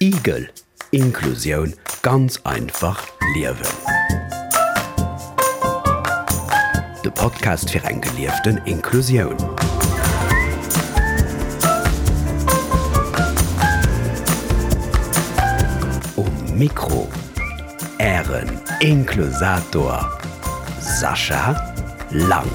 Igel, Inklusioun ganz einfach liewen. De Podcast fir eng gelieften Inklusioun. Um Mikro Ären Inklusator Sascha Lang.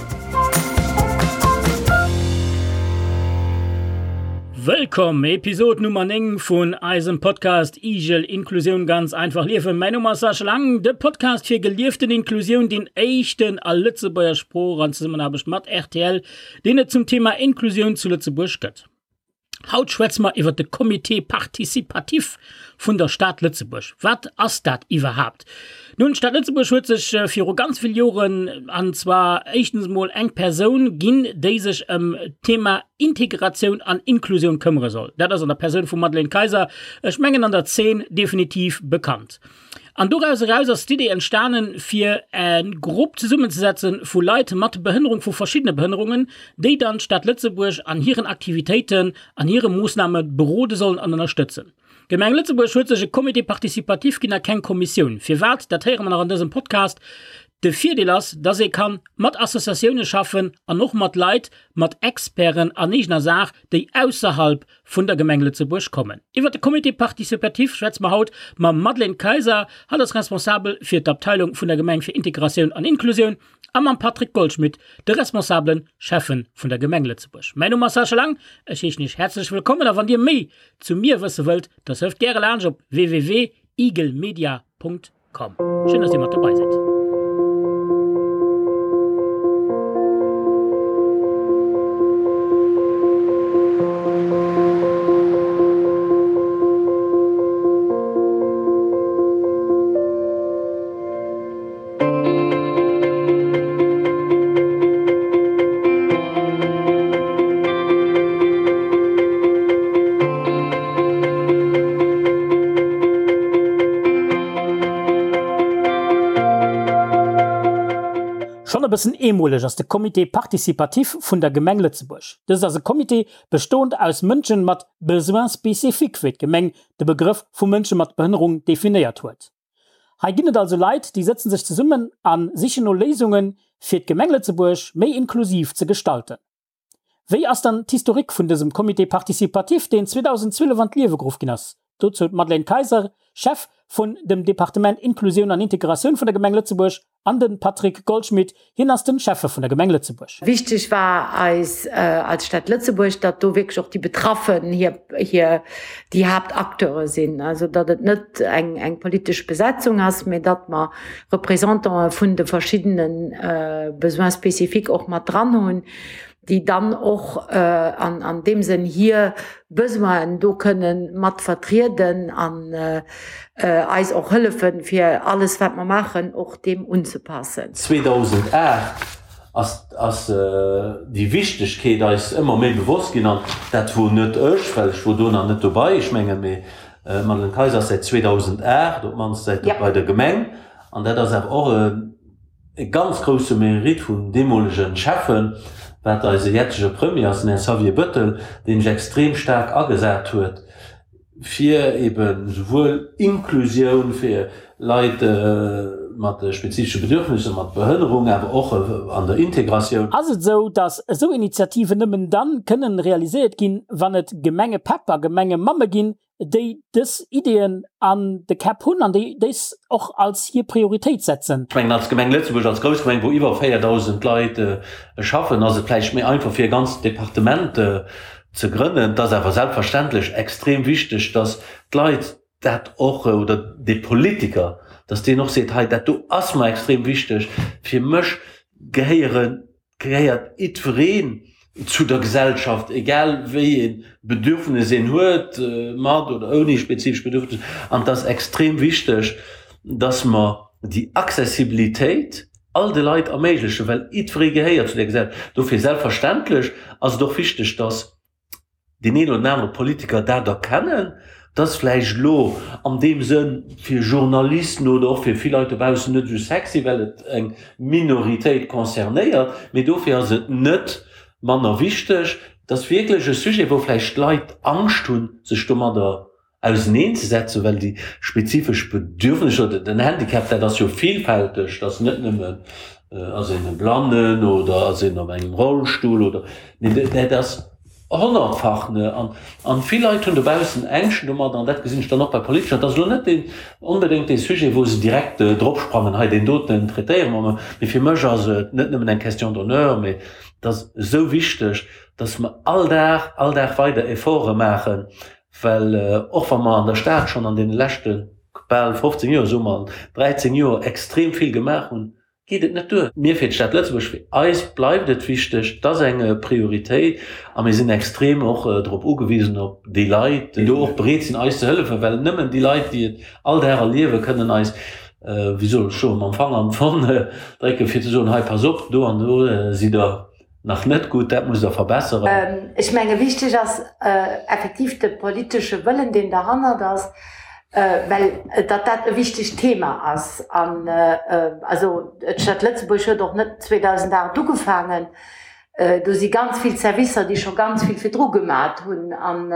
Wëllkomm, Episod Nummer 9 vun eisem Podcast Igel Inklusioun ganz einfach liewen. Mäin Numm ass Sascha Lang, de Podcast fir gelieften Inklusioun, deen éischten a Lëtzebuerger Sprooch an Zesummenaarbecht mat rtl, deen et zum Thema Inklusioun zu Lëtzebuerg gëtt. Haut schwätze mer iwwer de Comité participatif vun der Stad Lëtzebuerg. Wat ass dat iwwerhaapt? Nun, d'Stad Lëtzebuerg huet sech viru ganz vill Joren, an zwar éischtens emol eng Persoun ginn, déi sech ëm d'Thema Integratioun an Inklusioun këmmere soll. Dat ass an der Persoun vum Madeleine Kayser, ech mengen an der Zeen definitiv bekannt. An doraus eraus ass d'Idee entstanen, fir e Grupp zesummenzesetze vu Leit mat Behënnerung, vu verschiddene Behënnerungen, déi dann d'Stad Lëtzebuerg an hiren Aktivitéiten, an hire Moossname berode sollen an ënnerstëtzen. D'Gemeng Lëtzebuerg huet sech e Comité participatif ginn a keng Kommissioun. Firwat, dat héiere mer nach an dësem Podcast. De Virdeel ass, dass ee kann mat Associatioune schaffen an och mat Leit, mat Experten an eegener Saach, déi ausserhalb vun der Gemeng Lëtzebuerg kommen. Iwwer de Comité participatif schwätze mer haut mam Madeleine Kayser, hatt ass Responsabel fir d'Abteilung vun der Gemeng fir Integratioun an Inklusioun, a mam Patrick Goldschmidt, de responsabele Schäffe vun der Gemeng Lëtzebuerg. Mäin Numm ass Sascha Lang, ech heeschen Iech häerzlech wëllkommen a wann Dir méi zu mir wësse wëllt, da surft gäre laanscht op www.igelmedia.com. Komm, schéin dass dir mat dobei sidd. Schonn e bëssen eemoleg ass de Comité participatif vun der Gemeng Lëtzebuerg. Dëst ass e Comité bestoend aus Mënschen mat Besoins spécifiques, wéi d'Gemeng de Begrëff vu Mënsche mat Behënnerung definéiert huet. Hei ginn et also Leit, déi sëtzen sech zesummen a sichen no Léisungen, fir d'Gemeng Lëtzebuerg méi inklusiv ze gestalten. Wéi ass dann d'Historique vun dësem Comité participatif, deen 2012 an d'Liewe geruff ginn ass? Dozou d'Madeleine Kayser, Chef vun dem Departement Inklusioun an Integratioun vun der Gemeng Lëtzebuerg, An den Patrick Goldschmidt, hien ass den Schäffe vun der Gemeng Lëtzebuerg. Wichteg war eis als Stad Lëtzebuerg, datt do wierklech och déi Betraffen hir, hir, déi Haaptacteure sinn. Also datt et net eng, eng politesch Besetzung ass, mä datt mer Représentantë vun de verschiddene Besoins spécifiques och mat dran hunn, déi dann och an, an deem Sënn hir Besoinen do kënnen mat vertrieden an eis och hëllefen, fir alles, wat mer maachen, och deem unzepassen. 2008 ass, ass déi Wichtegkeet eis ëmmer méi bewosst ginn an dat wor net ech, well ech wor do nach net dobei, ech mengen, mee d'Madeleine Kayser ass säit 2008 op d'mannst säit bei der Gemeng an dat ass awer och e E ganz grousse Mérite vum deemolegen Schäffen, wat eise jetzege Premier ass, den Här Xavier Bettel, deen sech extrem staark agesat huet, fir eben souwuel Inklusioun fir Leit mat spezifesche Bedürfnisser, mat Behënnerung, awer och an der Integratioun. Ass et esou, datt esou Initiativen nëmmen dann kënnen realiséiert ginn, wann et Gemengepäpp a Gemengemamme ginn, déi dës Ideeën an de Käpp hunn an déi dës och als hir Prioritéit setzen. Ech mengen, als Gemeng Lëtzebuerg, als grouss Gemeng, wou iwwer 4.000 Leit schaffen, ass et vläicht méi einfach, fir e ganzt Departement ze grënnen. Et ass awer selbstverständlech extrem wichteg, dass d'Leit dat och, oder dee Politiker, dass deen och seet, hei dat do ass mer extrem wichteg, fir mech gehéieren Gehéiert jiddwereen zu der Gesellschaft, egal wéi ee Bedürfnis een huet, mat oder ouni spezifesch Bedürfnis. An et ass extrem wichteg, dass mer déi Accessibilitéit all de Leit erméiglechen, well jiddweree gehéiert zu där Gesellschaft. Dofir selbstverständlech ass et och wichteg, dass deen een oder den anere Politiker dat erkennen, dass vläicht elo an deem Sënn fir Journalisten oder och fir vill Leit dobaussen net esou sexy, well et eng Minoritéit concernéiert, mee dofir ass et net manner wichteg. Et ass wierklech e Sujet, wou vläicht d'Leit Angscht hunn, sech domadder. Auseneenzesetzen, well déi spezifesch Bedürfnisser oder den Handicap, dat ass jo vielfälteg, dat ass net nëmmen, ass een e Blannen oder ass een op engem Rollstull oder, mee dat ass honnertfach, ne. An, an vill Leit hunn dobaussen Ängschten domadder, an dat gesinn ech dann och bei Politeker, dat ass elo net deen, onbedéngt dee Sujet, wou se direkt dropsprangen, hei deen doten traitéiere mer emol, mee fir mech ass et net nëmmen eng Question d'honneur, mee et ass esou wichteg, dass mer all Dag, all Dag weider Efforte maachen, Well och wa mer an der Stad schonn an deene leschte bal 15 Joer, soe mer 13 Joer, extrem vill gemaach hunn, geet et net duer. Mir fir d'Stad Lëtzebuerg, fir eis bleift et wichteg, et ass eng Prioritéit a mir sinn extrem och drop ugewisen, op déi Leit, déi do och bereet sinn eis ze hëllefen, well nëmmen déi Leit, déi et all Dag erliewen, kënnen eis, wéi soll ech soen, mam Fanger an d'Wonn drécken, fir ze soen, hei pass op, do an do sidd Der Nach net gutt, dat musst Der verbesseren. Ech menge wichteg ass effektiv de politesche Wëllen, deen derhannert ass, well datt dat e wichtegt Thema ass. An also d'Stad Lëtzebuerg huet och net 2008 ugefaangen. Do si ganz vill Servicer, déi scho ganz vill virdru gemat hunn. An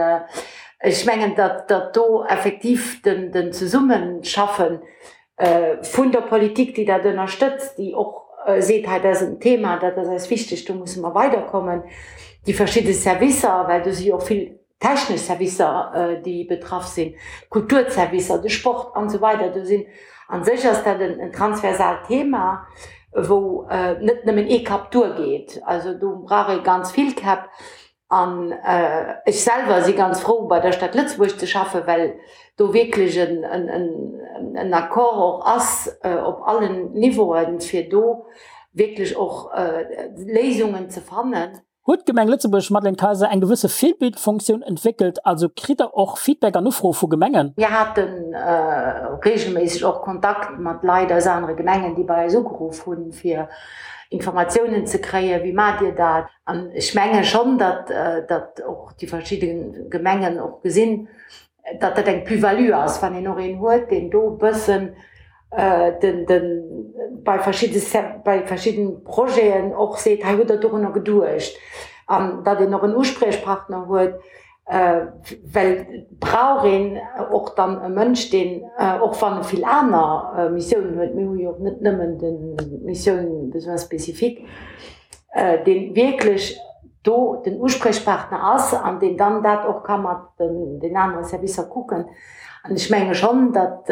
ech mengen, datt do effektiv den Zesummenschaffe vun der Politik, déi dat ënnerstëtzt, déi och seet, hei dat ass en Thema, dat ass eis wichteg, do musse mer weiderkommen, déi verschidde Servicer, well do si jo och vill technesch Servicer, déi betraff sinn, d'Kulturservicer, de Sport an esou weider. Do sinn, a sech ass dat en transversaalt Thema, wou net nëmmen ee Kapp duergeet. Also do brauch ee ganz vill Käpp. An ech selwer si ganz frou, bei der Stad Lëtzebuerg ze schaffen, well do wierklech en Accord och ass op allen Niveauen, fir do wierklech och Léisungen ze fannen. Huet d'Gemeng Lëtzebuerg, Madeleine Kayser, eng gewësse Virbildfunktioun entwéckelt? Also kritt Der och Feedback an Ufroe vu Gemengen? Mir hate reegelméisseg och Kontakt mat Leit aus anere Gemengen, déi bei eis ugeruff hunn, fir Informatiounen ze kréien, Wéi maacht Dir dat? An ech menge schonn, datt, datt och déi verschidde Gemengen och gesinn, datt dat eng Plus-value ass, wann een och een huet, deen do e bëssen den, den, bei verschidde, bei verschidde Projeten och seet, hei hutt Der dorunner geduecht. An datt een och en Uspriechpartner huet, well et brauch een och dann e Mënsch, deen, och wann e vill aner Missiounen huet, mir hu jo och net nëmmen d'Missioun Besoins spécifiques, dee wierklech do den Uspriechpartner ass an deen dann dat och ka mat den anere Servicer kucken. An ech menge schonn, datt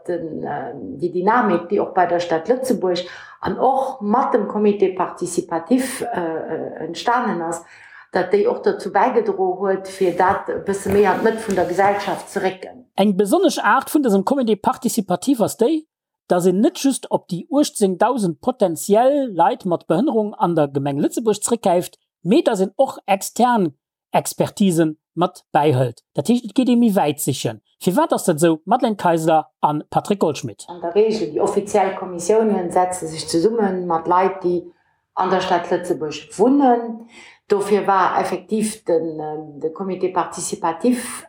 déi Dynamik, déi och bei der Stad Lëtzebuerg an och mat dem Comité participatif entstanen ass, datt déi och dozou bäigedro huet, fir dat e bësse méi an d'Mëtt vun der Gesellschaft ze récken. Eng besonnesch Aart vun dësem Comité participatif ass déi, dass een net just op déi 18.000 potentiell Leit mat Behënnerung an der Gemeng Lëtzebuerg zréckgräift, mee dass een och extern Expertisen mat bäihëlt. Dat heescht, et geet ee méi wäit sichen. Firwat ass dat esou? Madeleine Kayser a Patrick Goldschmidt. An der Regel, déi offiziell Kommissiounen setze sech zesumme mat Leit, déi an der Stad Lëtzebuerg wunnen. Dofir war effektiv de Comité participatif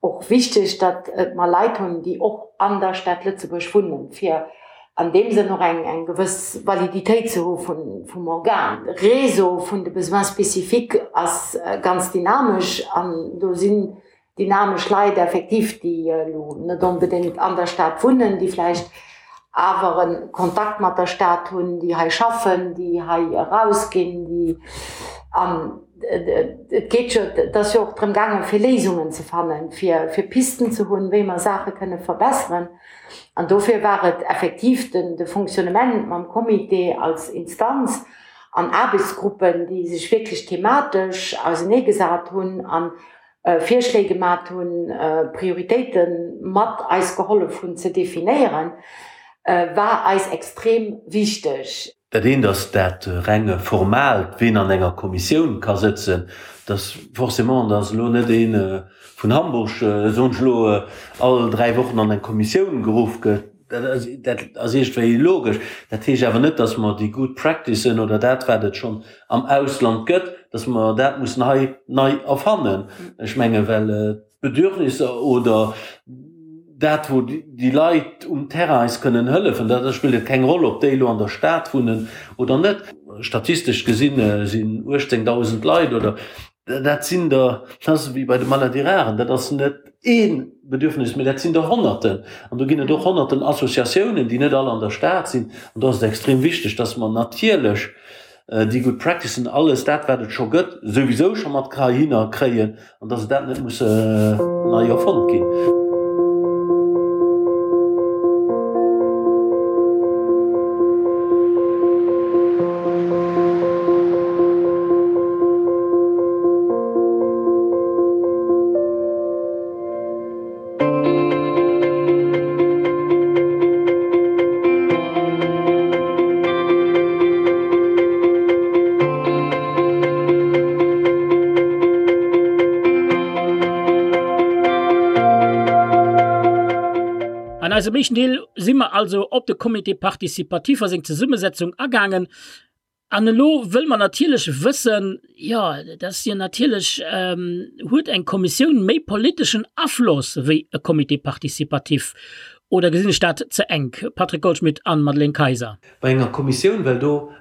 och wichteg, datt mer Leit hunn, déi och an der Stad Lëtzebuerg wunnen, fir an deem Sënn och eng gewëss Validitéit ze hu vum Organ. De Réseau vun de Besoins spécifiques ass ganz dynamesch an do sinn dynamesch Leit effektiv, déi elo net onbedéngt an der Stad wunnen, déi vläicht awer e Kontakt mat der Stad hunn, déi hei schaffen, déi hei erausginn, déi an et geet jo, et ass jo och drëm gaangen, fir Léisungen ze fannen, fir, fir Pisten ze hunn, wéi mer Saache kënne verbesseren. An dofir war et effektiv den, de Fonctionnement mam Comité als Instanz an Aarbechtsgruppen, déi sech wierklech thematesch auseneegesat hunn an Virschléi gemat hunn, Prioritéite mat eis gehollef hunn ze definéieren, war eis extrem wichteg. Dat eent ass dat reng Formaalt, ween an enger Kommissioun ka sëtzen. Dass forcément, dass elo net ee vun Hamburg, soen ech elo, all 3 Wochen an eng Kommissioun geruff gëtt. Dat ass iergendwéi logesch. Dat heescht awer net, dass mer déi good practicen oder dat, wat et schonn am Ausland gëtt, dass mer dat mussen hei nei erfannen. Ech menge well d'Bedürfnisser oder dat, wou déi Leit um Terrain eis kënnen hëllefen, da spillt et keng Roll, ob déi elo an der Stad wunnen oder net. Statistesch gesinn sinn 18.000 Leit oder. Dat sinn der, dat ass ewéi bei de Maladies rares, dat ass net ee Bedürfnis, mee dat sinn der Honnerten. An do ginn et och Honnerten Associatiounen, déi net all an der Stad sinn. An do ass et extrem wichteg, dass mer natierlech déi good practicen, alles dat, wat et scho gëtt, souwisou scho mat heihinner kréien an dass et dat net muss nei erfonnt ginn. An eisem éischten Deel si mer also op de Comité participatif a seng Zesummesetzung agaangen. An elo wëlle mer natierlech wëssen, jo, dat ass jo natierlech, huet eng Kommissioun méi politeschen Afloss wéi e Comité participatif oder gesinn ech dat ze enk? Patrick Goldschmidt an Madeleine Kayser. Bei enger Kommissioun, well do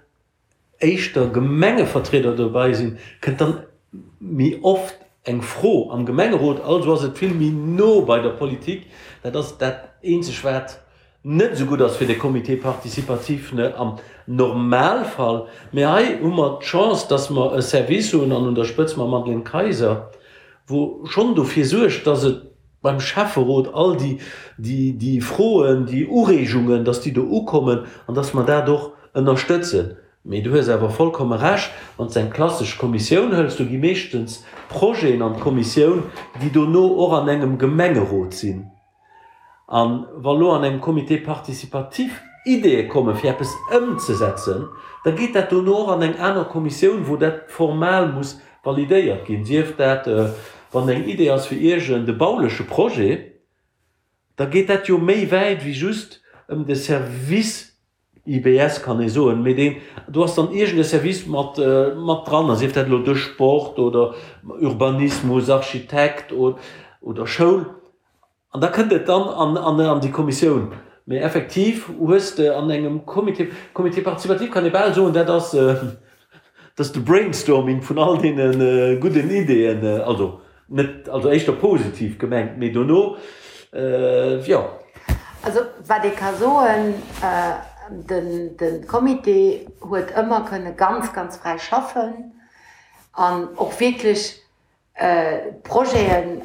éischter Gemengevertrieder dobäi sinn, kënnt dann méi oft eng Fro am Gemengerot, also ass et vill méi no bei der Politik. Dat ass dat eenzeg wat net esou gutt ass fir de Comité participatif am Normalfall. Mee hei hu mer d'Chance, dass mer e Service hunn, an un der Spëtz mam Madeleine Kayser, wou schonn dofir suergt, dass et beim Schäfferot all déi, déi Froen, déi Ureegungen, dass déi do ukommen an dass mer dat och ënnerstëtzen. Mee du hues awer vollkomme Recht, wann s de eng klassesch Kommissioun hëls, do gi meeschtens Projeten an d'Kommissioun, déi dono och an engem Gemengerot sinn. A wa lo an engem Comité participatif Ideeë komme fir eppes ëmzesetzen, da geet dat dono och an eng aner Kommissioun, wou dat formal muss validéiert ginn. Sief dat, wann eng Idee ass fir iergend e bauleche Projet, da geet dat jo méi wäit wéi just ëm de Service IBS kann ee soen, mee deen, do ass dann iergend e Service mat, mat dran, a sief dat elo de Sport oder Urbanismus, Architekt oder Schoul, an da kënnt et dann an, an, an déi Kommissioun. Mee effektiv hues de an engem Comité, Comité participatif kann ee bal soen, dat ass, dat ass de Brainstorming vun all deene gudden Ideeën, also Net, also éischter positiv gemengt, mee dono, jo. Also wat ee ka soen, de Comité huet ëmmer kënne ganz, ganz fräi schaffen an och wierklech Projeten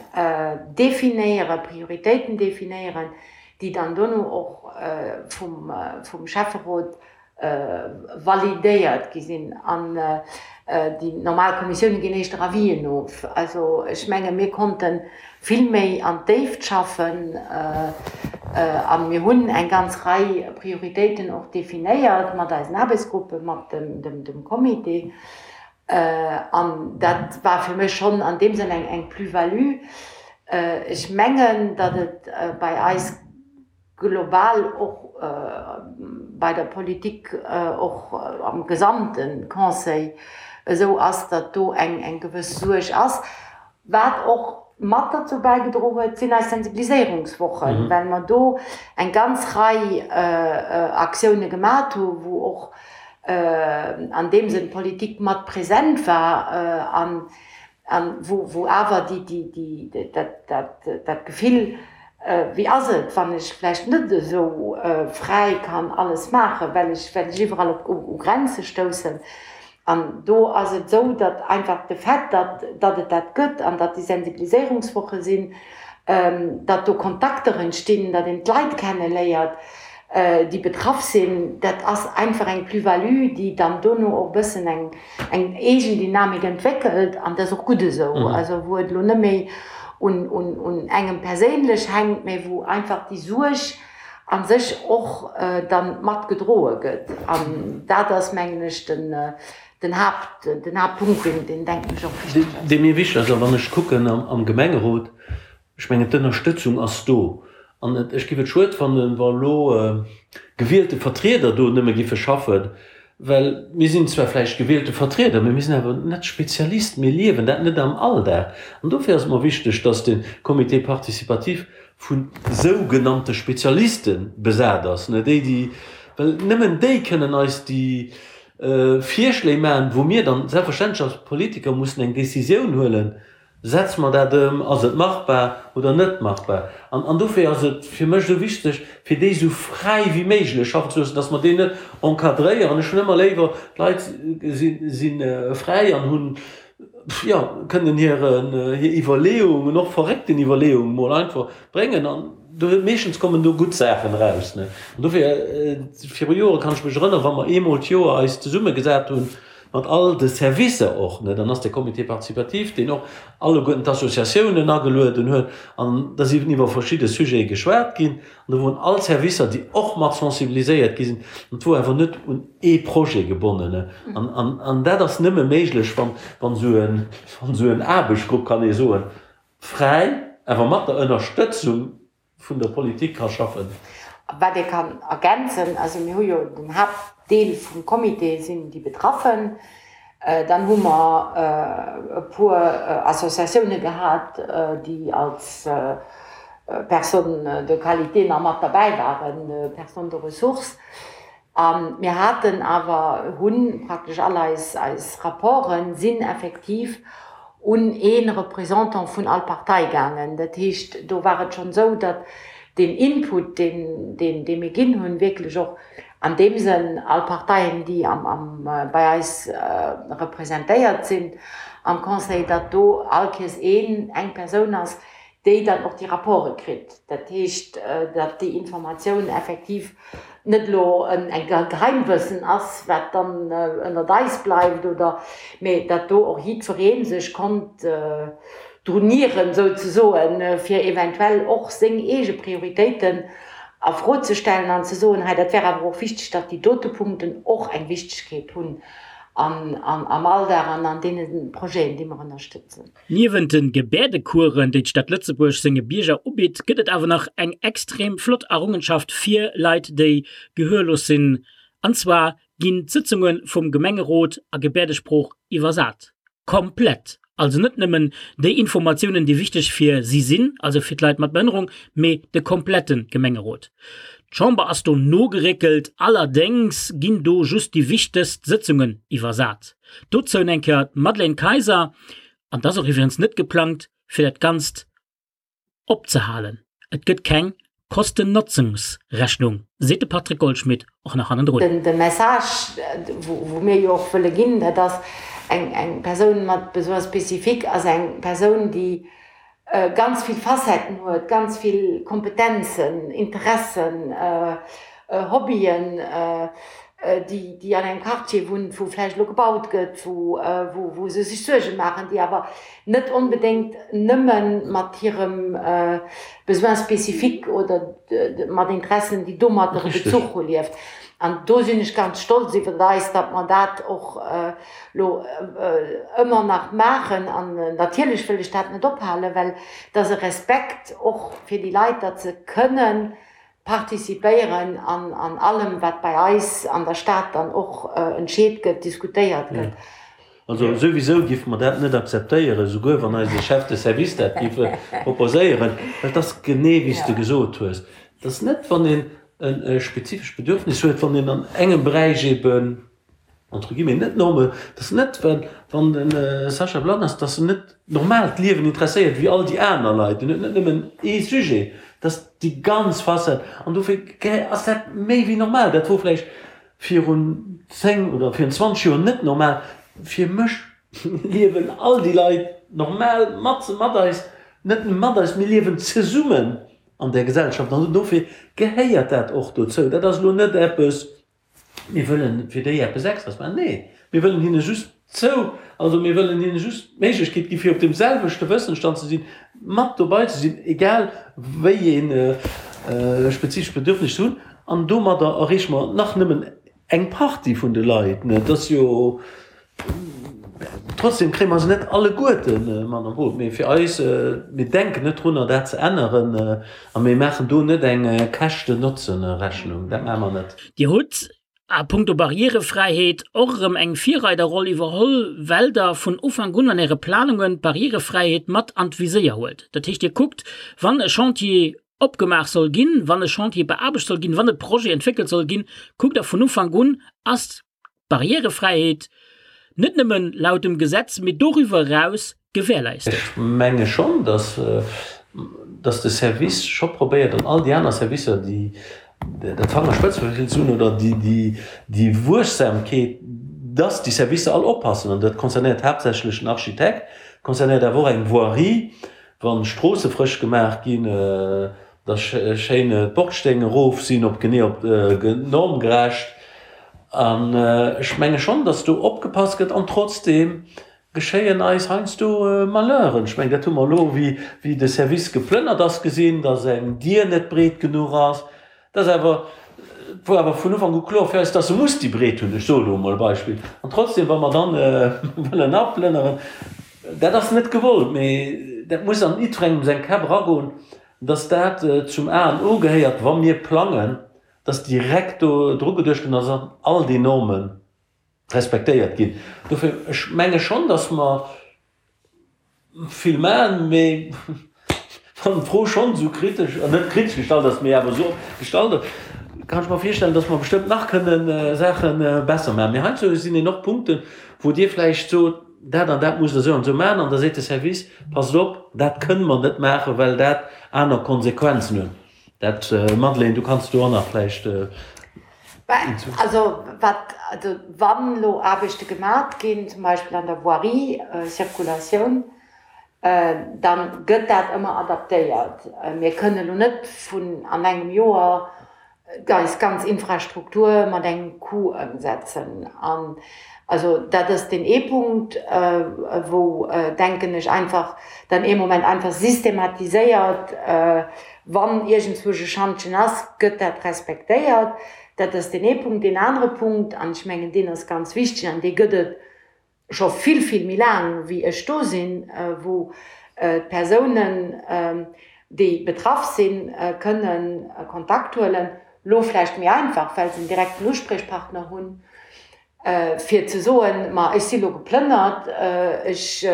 definéieren, Prioritéiten definéieren, déi dann dono och vum Schäfferot validéiert gi sinn an déi normal Kommissioune ginn éischter Avisen of. Also ech menge mir konnte vill méi an d'Déift schaffen a mir hunn eng ganz Rei Prioritéiten och definéiert mat eisen Aarbechtsgruppen, mat dem Comité. An dat war fir mech schonn an deem Sënn eng Plus-value. Ech mengen, datt et bei eis, global och bei der Politik, och am gesamte Conseil esou ass, datt do eng gewëss Suerg ass. Wat och mat derzou bäigedro huet, sinn eis Sensibiliséierungswochen, well mer do eng ganz Rei Aktioune gemat hu wou och an deem Sënn d'Politik mat present war an An wou awer dat Gefill, wéi ass et, wann ech vläicht net esou fräi kann alles maachen, well ech iwwerall u Grenze stoussen. An do ass et esou, datt einfach de Fait, datt et dat gëtt an datt déi Sensibiliséierungswoche sinn, datt do Kontakter entstinn, datt een d'Leit kenneléiert, déi betraff sinn, dat ass einfach eng Plus-value, déi dann dono och e bëssen eng eng eegen Dynamik entwéckelt an dat ass och gutt esou, also wou et elo net méi un un engem perséinlech hänkt, mä wou einfach déi Suerg a sech och dann mat gedroe gëtt. An dat ass, mengen ech, den den Haapt den Haaptpunkt, deen deen denken ech och wichteg ass. Dee mir wichteg ass, a wann ech kucken am Gemengerot, Ech mengen, d'Ënnerstëtzung ass do. An ech géif et schued fannen, wa elo gewielte Vertrieder do nëmme giffe schaffen, well mir sinn zwar vläicht gewielte Vertrieder, mä mir sinn awer net Spezialisten, mir liewen dat net am Alldag. An dofir ass et mer wichteg, dass de Comité participatif vu sougenannte Spezialiste besat ass, déi, déi, well nëmmen déi kënnen eis déi. Virschléi maachen, wou mir dann selbstverständlech als Politiker mussen eng Décisioun huelen, Setze mer dat ëm, ass et machbar oder net machbar? An, an dofir ass et fir mech esou wichteg, fir déi esou fräi wéi méiglech schaffen ze loossen, dass mer déi net encadréieren. Ech hunn ëmmer léiwer, d'Leit si, si fräi an hunn, jo, kënnen hiren, hir Iwwerleeungen, och verréckten Iwwerleeungen mol einfach bréngen an do, meeschtens kommen do gutt Saachen eraus, ne. An dofir, viru Jore kann ech mech erënneren, wa mer eemol d'Joer eis zesummegesat hunn, mat all de Servicer och, ne, dann ass de Comité participatif, deen och alleguerten d'Associatiounen agelueden huet, an da sinn iwwer verschidde Sujete geschwat ginn, an do woren all Servicer, déi och mat sensibiliséiert gi sinn, an et wor awer net un ee Projet gebonnen, ne. An, an, an dat ass nëmme méiglech, wann, wann esou en, wann esou en Aarbechtsgrupp, kann ee soen, fräi, awer mat der Ënnerstëtzung vun der Politik ka schaffen. Wat ee kann ergänzen, also mir hu jo den Haaptdeel vum Comité sinn déi Betraffen, dann hu mer e puer Associatioune gehat, déi als Personnes de qualité nach mat derbäi waren, Personnes de ressources. A mir haten awer, hu praktesch all eis, eis Rapporte sinn effektiv un ee Représentant vun all Partei gaangen. Dat heescht, do war et schonn esou, datt deen Input, deen, deen, dee mir ginn hunn, wierklech och an deem Sënn all Parteien, déi am, am, bei eis representéiert sinn am Conseil, datt do all Kees een, eng Persoun ass, déi dann och déi Rapporte kritt. Dat heescht, datt déi Informatioun effektiv net elo en Geheimwëssen ass, wat dann ënnert eis bleift, oder, mee datt do och jiddweree sech konnt drun nieren, souzesoen, fir eventuell och seng eege Prioritéiten a Fro ze stellen an ze soen, hei dat wär awer och wichteg, datt déi dote Punkten och eng Wichtegkeet hunn am Alldag an an deene Projeten, déi mer ënnerstëtzen. Niewent de Gebäerdecoursen, déi d'Stad Lëtzebuerg senge Bierger ubitt, gëtt et awer nach eng extrem flott Errungenschaft fir Leit, déi gehörlos sinn. An zwar ginn d'Sëtzunge vum Gemengerot a Gebäerdesprooch iwwersat. Komplett! Also net nëmmen déi Informatiounen, déi wichteg fir si sinn, also fir d'Leit mat Behënnerung, mee de komplette Gemengerot. D'Chamber ass do nogeréckelt, allerdéngs ginn do just déi wichtegst Sëtzungen iwwersat. Dozou eng Kéier d'Madeleine Kayser, An et ass och iwwregens net geplangt, fir dat Ganzt opzehalen. Et gëtt keng Kosten-Notzungs-Rechnung, seet de Patrick Goldschmidt och nach hannendrun. De Message, wou mir jo och wëlle ginn, dat ass, eng Persoun mat Besoins spécifiques ass eng Persoun, déi ganz vill Facetten huet, ganz vill Kompetenzen, Interessen, Hobbyen, déi, déi an engem Quartier wunnt, wou vläicht elo gebaut gëtt, wou, wou se sech Suerge maachen, déi awer net onbedéngt nëmme mat hirem Besoin spécifique oder mat Interessen, déi domadder e Bezuch hu lieft. An do sinn ech ganz stolz iwwer eis, datt mer dat och lo ëmmer nach maachen an natierlech wëll ech dat net ophalen, well et ass e Respekt och fir déi Leit, datt se kënnen participéieren an an allem, wat bei eis an der Stad dann och entscheet gëtt, diskutéiert gëtt. Also souwisou géife mer dat net akzeptéieren, souguer wann eise Chef de service dat géif proposéieren, well et ass genee wéi s de gesot hues, et ass net, wann een e spezifescht Bedürfnis huet, wann een an engem Beräich eeben, entre guillemets, net norme, dass net, wann de Sacha blann ass, dass en net normal d'Liewen interesséiert wéi all déi aner Leit, en huet net nëmmen ee Sujet, dass déi ganz Facette, an dofir ass dat méi wéi normal. Dat wor vläicht virun 10 oder virun 20 Joer net normal. Fir mech liewen all déi Leit normal mat mat eis, net nëmme mat eis, mir liewen zesummen an där Gesellschaft an dofir gehéiert dat och dozou. Dat ass elo net eppes, Mir wëllen fir déi eppes Extras maachen. Nee, mir wëllen hinne just zou, also mir wëllen hinne just d'Méiglechkeet gi fir op deem selwechte Wëssensstand ze sinn, mat dobei ze sinn, egal wéi ee spezifescht Bedürfnis se hunn. An domadder erreeche mer nach nëmmen eng Partie vun de Leit. Et ass jo Trotzdem kréie mer se net alleguerte mat an d'Boot. Mee fir eis, mir denken net drunner, dat ze änneren a mir maachen do net eng Käschten-Notzen-Rechnung. Dat maache mer net. Dir hutt a puncto Barrièrefräiheet och erëm eng Virreiderroll iwwerholl, well Der vun Ufank un an Äre Planungen d'Barrièrefräiheet mat an d'Viséier huelt. Dat heescht, Dir kuckt, wann e Chantier opgemaach soll ginn, wann e Chantier beaarbecht soll ginn, wann e Projet entwéckelt soll ginn, kuckt Der vun Ufank un, ass. D'Barrièrefräiheet net nëmmen laut dem Gesetz, mee doriwwer eraus gewährleistet. Ech menge schonn, dass, dass de Service scho probéiert, an all déi aner Servicer, déi dat Fangerspëtzegefill ze hunn oder déi, déi, déi Wuechsamkeet, dass déi Servicer all oppassen. An dat concernéiert haaptsächlech den Architekt, concernéiert awer och eng Voirie, wa Stroosse frësch gemaach ginn, dass schéin d'Bordsteng erof sinn, op genee op normgerecht. An ech menge schonn, dass do opgepasst gëtt. An trotzdeem geschéien eis heiansdo Malheuren. Ech mengen, dat hu mer elo, wéi de Service geplënnert ass, gesinn, dass eng Dier net breet genuch ass. Dat ass awer, et wor awer vun Ufank u kloer fir eis, dass se muss déi Breet hunn. Ech soe lo emol e Beispill. An trotzdem, wa mer dann wëllen aplënneren, dat ass net gewollt, mee dat muss an jiddwerengem seng Käpp eragoen, dass dat zum A an O gehéiert, wa mir plangen, dass direkt do dru geduecht gëtt an dass all déi Norme respektéiert ginn. Dofir, ech menge schonn, dass mer vill maachen, mee wann d'Fro schonn esou kritesch, net kritesch gestallt ass, mee awer esou gestallt ass, kann ech mer virstellen, dass mer bestëmmt nach kënne Saache besser maachen. Mee heiansdo sinn een och Punkten, wou Dir vläicht sot, dat an dat musst Der esou an esou maachen, an da seet de Service, passt op, dat kënne mer net maachen, well dat aner Konsequenzen huet. Dat, Madeleine, du kanns do och nach vläicht. Also wat, also wann elo Aarbechte gemat ginn, zum Beispill an der Voirie, Circulatioun, da gëtt dat ëmmer adaptéiert. Mir kënnen elo net vun an engem Joer eis ganz Infrastruktur mat engem Coup ëmsetzen. An also dat ass deen ee Punkt, wou, denken ech, einfach dann ee Moment einfach systematiséiert, wann iergendzwousch e Schantjen ass, gëtt dat respektéiert. Dat ass deen ee Punkt. Deen anere Punkt, an ech mengen, deen ass ganz wichteg an dee gëtt et scho vill, vill méi laang wéi ech do sinn, wou d'Persounen, déi betraff sinn, kënnen Kontakt huelen, elo vläicht méi einfach, well se en direkten Uspriechpartner hunn, fir ze soen, ma ech si lo geplënnert, ech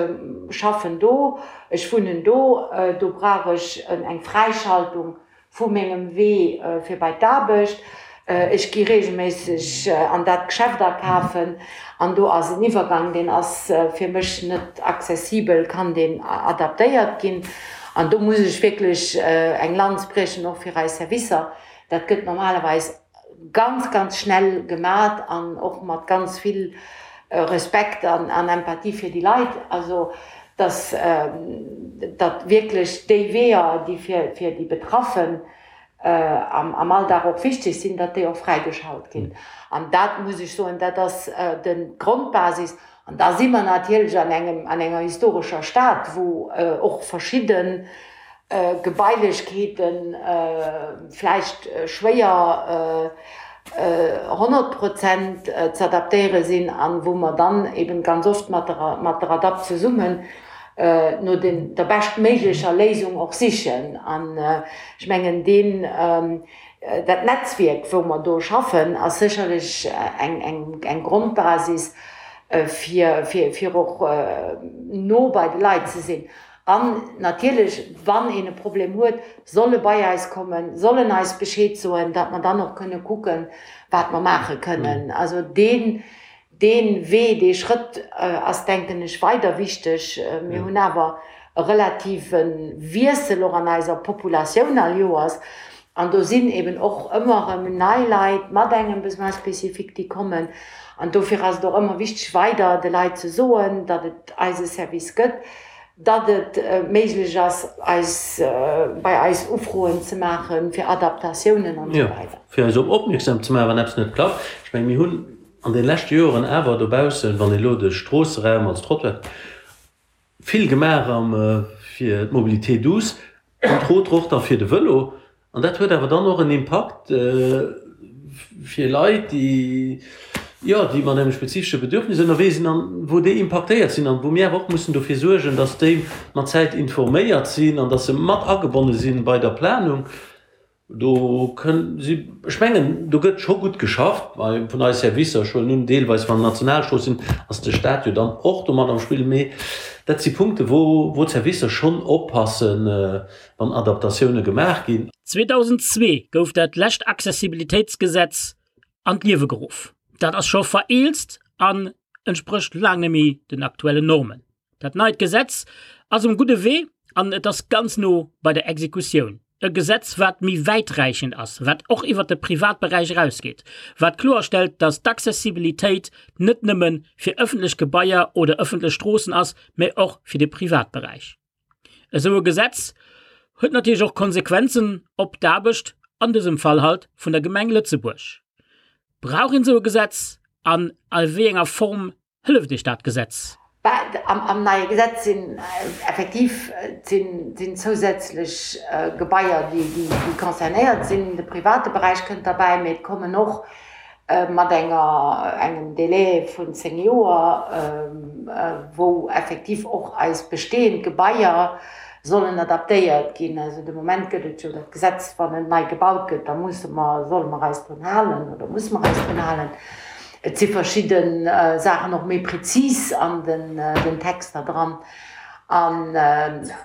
schaffen do, ech wunnen do, do brauch ech eng Fräischaltung vu mengem Wee fir bei d'Aarbecht. Ech gi reegelméisseg an dat Geschäft akafen an do ass en Iwwergang, deen ass fir mech net accessibel, kann deen adaptéiert ginn? An do muss ech wierklech eng Lanz briechen, och fir eis Servicer. Dat gëtt normalerweis ganz, ganz schnell gemat an och mat ganz vill Respekt an Empathie fir déi Leit. Also dass datt wierklech déi Weeër, déi fir fir déi Betraffen am Alldag och wichteg sinn, datt déi och fräigeschalt ginn. An dat muss ech soen, dat ass de Grondbasis. An da si mer natierlech an engem an enger historescher Stad, wou och verschidde Gebailechkeete vläicht schwéier 100 Prozent ze adaptéiere sinn an wou mer dann eben ganz oft mat der mat der ADAPT zesummen no den der beschtméiglecher Léisung och sichen. An ech mengen deen dat Netzwierk wou mer do schaffen ass sécherlech eng eng eng Grondbasis fir fir fir och no bei de Leit ze sinn. An natierlech, wann een e Problem huet, soll e bei eis kommen, soll en eis Bescheed soen, datt mer dann och kënne kucken, wat mer maache kënnen. Also deen, dee Wee, dee Schrëtt ass, denken ech, weider wichteg. Mir hunn awer e relative Wiessel och an eiser Populatioun all Joers. An do sinn eben och ëmmer erëm nei Leit mat engem Besoin spécifique, déi kommen. An dofir ass et och ëmmer wichteg, weider de Leit ze soen, datt et eise Service gëtt, datt et méiglech ass, eis, bei eis Ufroen ze maachen fir Adaptatiounen an esou weider. Jo, fir eis op opmierksam ze maachen, wann eppes net klappt. Ech mengen, mir hunn an de leschte Joren awer dobaussen, wann ee elo de Stroosseraum als Trottoir, Vill gemaach am fir d'Mobilité douce, entre autres och da fir de Vëlo. An dat huet awer dann och en Impakt fir Leit, déi, jo, déi mat engem spezifesche Bedürfnis ënnerwee sinn an wou déi impaktéiert sinn an wou mir awer och mussen dofir suergen, dass déi mat Zäit informéiert sinn an dass se mat agebonne sinn bei der Planung. Do kënn si, ech mengen, do gëtt scho gutt geschafft bei vun eis Servicer. Ech huelen un, deelweis wann Nationalstrooss sinn, ass de Stat jo dann och do mat am Spill. Mee dat si Punkte wou, wou d'Servicer schonn oppassen, wann Adaptatioune gemaach ginn. 2002 gouf dat lescht Accessibilitéitsgesetz an d'Liewe geruff. Dat ass scho vereelzt an entsprécht laang net méi den aktuellen Normen. Dat neit Gesetz ass um gudde Wee an et ass ganz no bei der Exekutioun. E Gesetz, wat méi wäiträichend ass, wat och iwwert de Privatberäich erausgeet, wat kloerstellt, dass d'Accessibilitéit net nëmme fir ëffentlech Gebaier oder ëffentlech Stroossen ass, mä och fir de Privatberäich. Esou e Gesetz huet natierlech och Konsequenzen op d'Aarbecht, an dësem Fall halt vun der Gemeng Lëtzebuerg. Brauch een esou e Gesetz an a wéi enger Form Hëlleft Iech dat Gesetz? Am neie Gesetz sinn effektiv sinn zousätzlech Gebaier, déi concernéiert sinn. De private Beräich kënnt derbäi, mee et kommen och mat enger engem Délai vun 10 Joer, wou effektiv och eis bestehend Gebaier sollen adaptéiert ginn. Also de Moment gëtt et jo dat Gesetz, wann en nei gebaut gëtt, da musse mer, solle mer eis drun halen oder musse mer eis drun halen. Et si verschidde Saachen och méi prezis an den Texter dran. An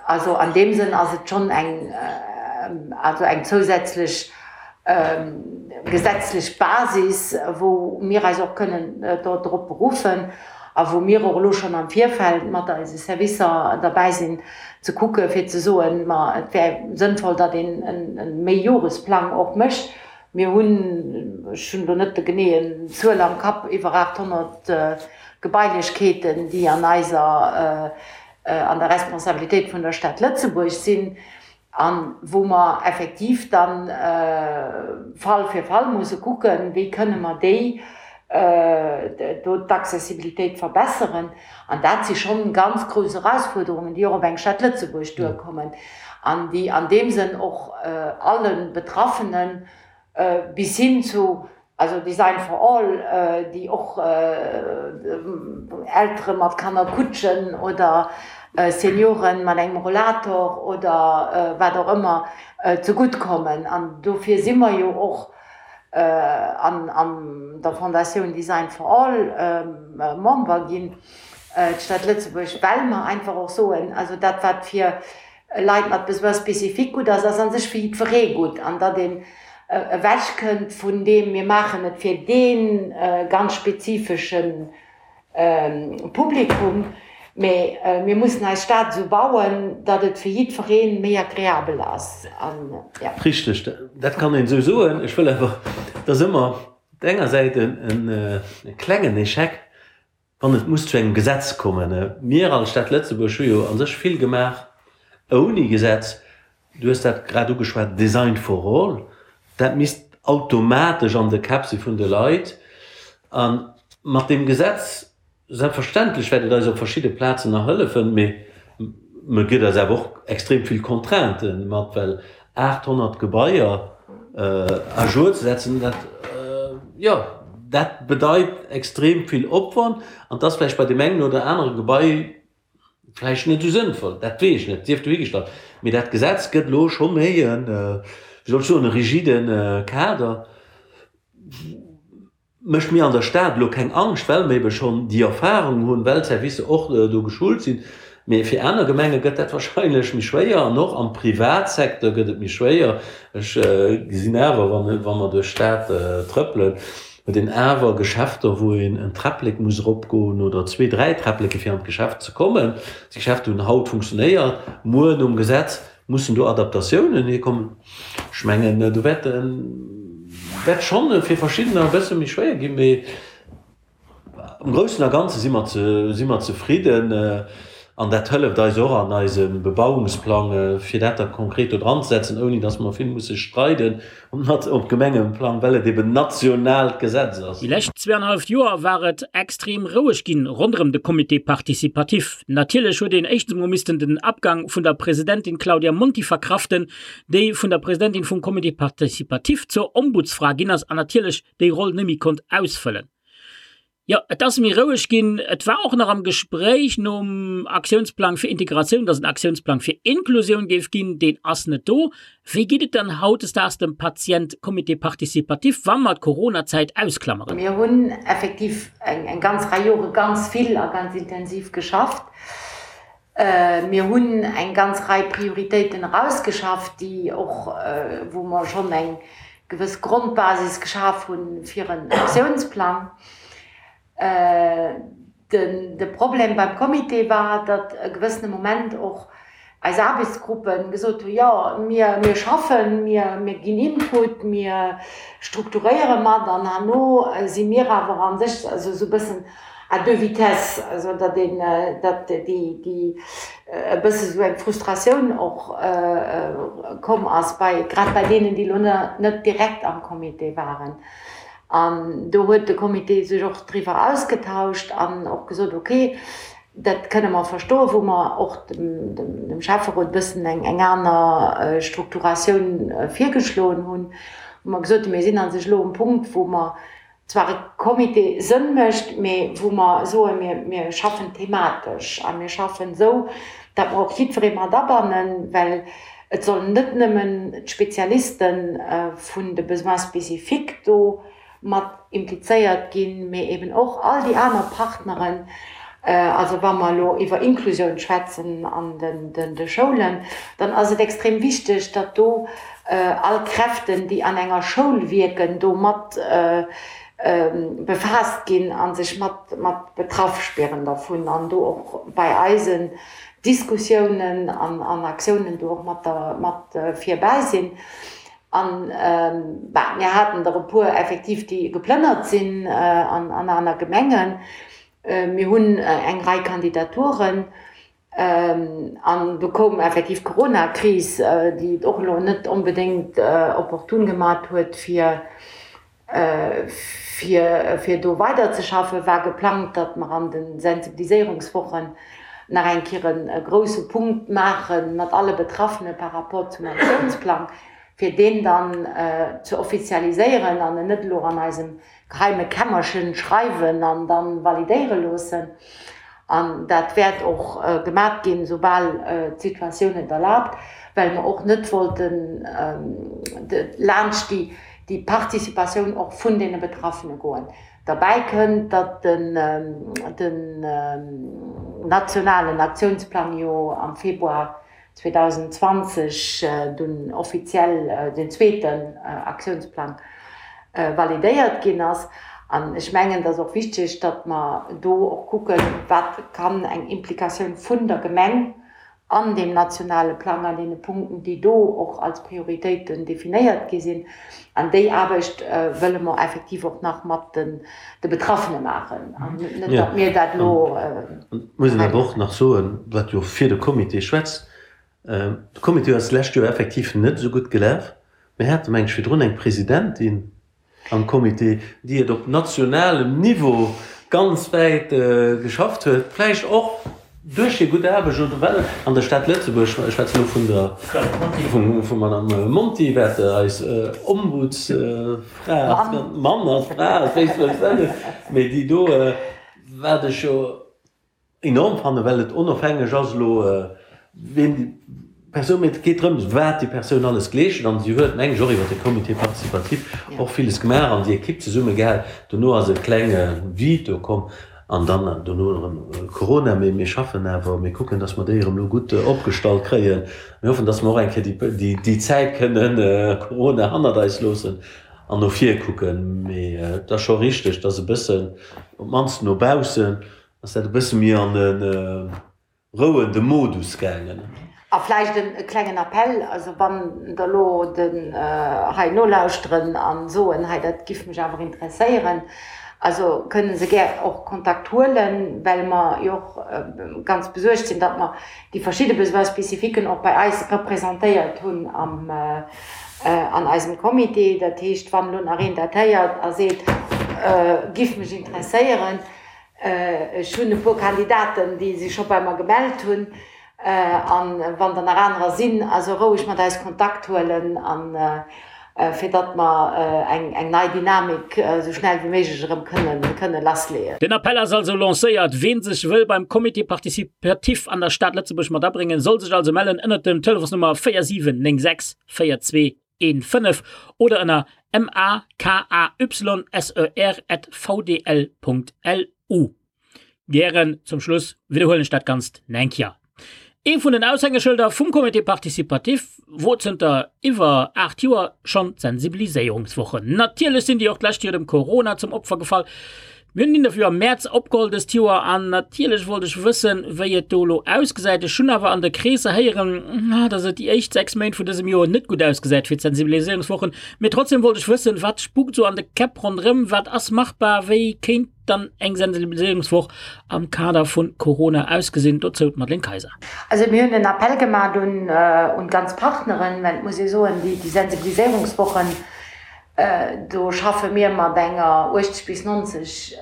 also an deem Sënn ass et schonn eng, also eng zousätzlech gesetzlech Basis, wou mir eis och kënnen drop beruffen a wou mir och elo schonn am Virfeld mat eise Servicer derbäi sinn, ze kucke fir ze soen, ma et wär sënnvoll, datt een e Méijoresplang och mécht. Mir hunn, ech hunn elo net de geneeën Zuel am Kapp, iwwer 800 Gebailechkeeten, déi an eiser, an der Responsabilitéit vun der Stad Lëtzebuerg sinn a wou mer effektiv dann Fall fir Fall musse kucken, wéi kënne mer déi do d'Accessibilitéit verbesseren. An dat si schonn ganz grouss Erausfuerderungen, déi och op eng Stad Lëtzebuerg duerkommen an déi an deem Sënn och alle Betraffene bis hin zu, also Design for all, déi och Eltere mat Kannerkutschen oder Senioren mat engem Rollator oder wat och ëmmer zegutt kommen. An dofir si mer jo och an der Fondatioun Design for All Member ginn, d'Stad Lëtzebuerg, well mer einfach och soen, also dat wat fir Leit mat Besoins spécifiques gutt ass, ass a sech fir jiddweree gutt an datt een ewechkënnt vun deem mir maachen et fir dee ganz spezifesche Publikum, mee mir mussen eis Stad esou bauen, datt et fir jiddweree méi agreabel ass. Richteg, dat kann een esou soen. Ech wëll awer, et ass ëmmer op der enger Säit e klengen Echec, wann et muss zu engem Gesetz kommen. Mir als Stad Lëtzebuerg hu jo a sech vill gemaach ouni Gesetz. Du hues dat grad ugeschwat, Design for all, dat misst automatesch an de Käpp si vun de Leit. A mat deem Gesetz, selbstverständlech wäert et eis op verschidde Plazen nach hëllefen, mee e gëtt eis awer och extrem vill Contraintë mat, well 800 Gebaier à jour ze setzen, dat, jo, dat bedeit extrem vill Opwand an et ass vläicht bei deem engen oder anere Gebai Vläicht net esou sënnvoll, dat weess ech net, sief dohigestallt. Mee dat Gesetz gëtt elo scho méi en, wéi soll ech soen, e rigide Kader. Mécht mir an der Stad elo keng Angscht, well mir ebe schonn déi Erfahrung hunn, well d'Servicer och do geschult sinn. Mee fir aner Gemenge gëtt dat wahrscheinlech méi schwéier an och am Privatsecteur gëtt et méi schwéier. Ech gesinn awer, wa mer duerch d'Stad trëppelen, Huet een awer Geschäfter, wou een en Träpplek muss eropgoen oder zwee, dräi Träppleke fir an d'Geschäft ze kommen. Déi Geschäfter hunn haut funktionéiert, muer nom Gesetz mussen do Adaptatiounen hikommen. Ech mengen, do wäert wäert schonn fir verschiddener e bësse méi schwéier ginn, mee am Groussen a Ganze si mer si mer zefridden. An dat hëlleft eis och an eisem Bebauungsplang, fir dat da konkret do dran ze setzen, ouni datt mer vill musse streiden op Gemengeplang, well et eben nationaalt Gesetz ass. Déi lescht zweeanenhalleft Joer war et extrem roueg ginn ronderëm de Comité participatif. Natierlech huet een éischtens emol missten den Abgang vun der Presidentin Claudia Monti verkraften, déi vun der Presidentin vum Comité participatif zur Ombudsfra ginn ass an natierlech déi Roll net méi konnt ausfëllen. Jo, et ass méi roueg ginn. Et war och nach am Gespréich nom Aktiounsplang fir Integratioun, dass en Aktiounsplang fir Inklusioun géif ginn. Deen ass net do. Wéi geet et dann hautdesdaags dem Patient Comité participatif, wa mer d'Coronazäit ausklammeren? Mir hunn effektiv eng ganz Rei Jore ganz vill a ganz intensiv geschafft. Mir hunn eng ganz Rei Prioritéiten erausgeschafft, déi och, wou mer schonn eng. gewëss Grondbasis geschaf hunn fir en Aktiounsplang. De Problem beim Comité war, datt e gewëssene Moment och eis Aarbechtsgruppe gesot hunn, jo, mir schaffen, mir ginn Input, mir strukturéiere mat an herno si mir awer a sech also esou e bëssen à deux vitesses, also datt een, datt déi e bësse esou eng Frustratioun och komm ass bei, grad bei deenen, déi elo net direkt am Comité waren. An do huet de Comité sech och driwwer ausgetauscht an och gesot, ok, dat kënne mer verstoen, wou mer och dem Schäfferot e bëssen eng aner Strukturatioun virgeschloen hunn, wou mer gesot hunn, mir sinn a sech elo um Punkt, wou mer zwar e Comité Sënn mécht, mee wou mer soen, mir schaffen thematesch a mir schaffen esou, datt mer och jiddweree mat abannen, well Et sollen net nëmmen d'Spezialiste vun de Besoins spécifiques do mat implizéiert ginn, mee eben och all déi aner Partneren. Also wa mer elo iwwer Inklusioun schwätzen an de Schoulen, dann ass et extrem wichteg, datt do all Kräften, déi an enger Schoul wierken, do mat befaasst ginn a sech mat betraff spieren dervun an do och bei eisen Diskussiounen an Aktiounen do och mat mat virbäi sinn. An, bah, mir haten der e puer effektiv, déi geplënnert sinn an aner Gemengen. Mir hunn eng Rei Kandidaturen. An do koum effektiv d'Coronakris, déi et och elo net onbedéngt opportun gemat huet, fir Fir do weiderzeschaffen, war geplangt, datt mer an de Sensibiliséierungswochen nach eng Kéier e grousse Punkt maache mat alle Betraffene par rapport zum Aktiounsplang, fir deen dann ze offizialiséieren an en net elo an eisem geheime Kämmerchen schreiwen an da validéiere loossen. An dat wäert och gemat ginn, soubal d'Situatioun et erlaabt, well mer och net wollten laanscht déi déi Participatioun och vun deene Betraffene goen. Derbäi kënnt, datt den nationalen Aktiounsplang jo am Februar 2020 dunn offiziell den zweeten Aktiounsplang validéiert ginn ass. An ech mengen, et ass och wichteg, datt mer do och kucken, wat kann eng Implikatioun vun der Gemeng an deem nationale Plang, an deene Punkten, déi do och als Prioritéiten definéiert gi sinn. An déi Aarbecht wëlle mer effektiv och nach mat de Betraffene maachen an net, datt mir dat elo. Et muss een awer och nach soen, wat jo fir de Comité schwätzt, De Comité ass d'lescht Joer effektiv net esou gutt gelaf. Mir hate meng ech virdrun eng Presidentin, am Comité, déi et op nationalem Niveau ganz wäit geschafft huet, vläicht och duerch hir gutt Aarbecht oder well an der Stad Lëtzebuerg, ech schwätzen elo vun der, vum Madame Monti, wat eis Ombudsfra ass, Mann ass, Fra ass, wéi s de wëlls nennen, mee déi do, wat ech jo enorm fannen, well et onofhängeg ass elo ween déi Persoun, mee et geet drëms wat déi Persoun alles geleescht huet an si huet meng ech och iwwer de Comité participatif och villes gemaach an déi Equipe zesumme gehal. Dono ass e klenge Vide do komm an dann dono erëm Corona, mee mir schaffen awer, mir kucken, datt mer déi erëm elo gutt opgestallt kréien. Mir hoffen, datt mer och eng Kéier déi déi Zäit kënnen Corona hannert eis loossen an no vir kucken. Mee et ass scho richteg, datt e bëssen, op d'mannst no baussen, Ass dat e bësse méi an e rouende Modus gaangen? A vläicht e klengen Appell, also wann der elo den hei nolauschteren a soen, hei dat giff mech awer interesséieren, also kënne se gär och Kontakt huelen, well mer jo och ganz besuergt sinn, datt mer déi verschidde Besoins spécifiquen och bei eis representéiert hunn am an eisem Comité. Dat heescht, wann elo nach een dat héiert a seet, giff mech interesséieren, Ech hunn e puer Kandidaten, déi sech scho bei mer gemellt hunn. A wann der nach anerer sinn, also roueg mat eis Kontakt huelen, a fir datt mer eng nei Dynamik esou schnell wéi méiglech erëm kënne lassleeën. Den Appell ass also lancéiert. Ween sech wëll beim Comité participatif an der Stad Lëtzebuerg mat abréngen, soll sech also mellen ënnert dem Telefonsnummer 4796 42 15 oder ënner makayser@vdl.lu. Gären zum Schluss widderhuelen ech dat Ganzt nach eng Kéier. Ee vun den Aushängeschëlder vum Comité participatif wor zënter iwwer 8 Joer schonn d'Sensibiliséierungswochen. Natierlech sinn déi och d'lescht Joer dem Corona zum Opfer gefall. Mir hunn den Interview am Mäerz opgeholl dëst Joer an natierlech wollt ech wëssen, wéi et do elo ausgesäit. Ech hunn awer an de Kreesser héieren, dass et déi éischt 6 Méint vun dësem Joer net gutt ausgesäit fir d'Sensibiliséierungswochen. Mee trotzdem wollt ech wëssen, wat spukt sou an de Käpp ronderëm, wat ass machbar, wéi kéint dann eng Sensibiliséierungswoch am Kader vun Corona ausgesinn? Dozou d'Madeleine Kayser. Also mir hunn en Appell gemaat un d'ganz Partneren, well et muss ee soen, déi Sensibiliséierungswochen, do schaffe mir mat enger 80 bis 90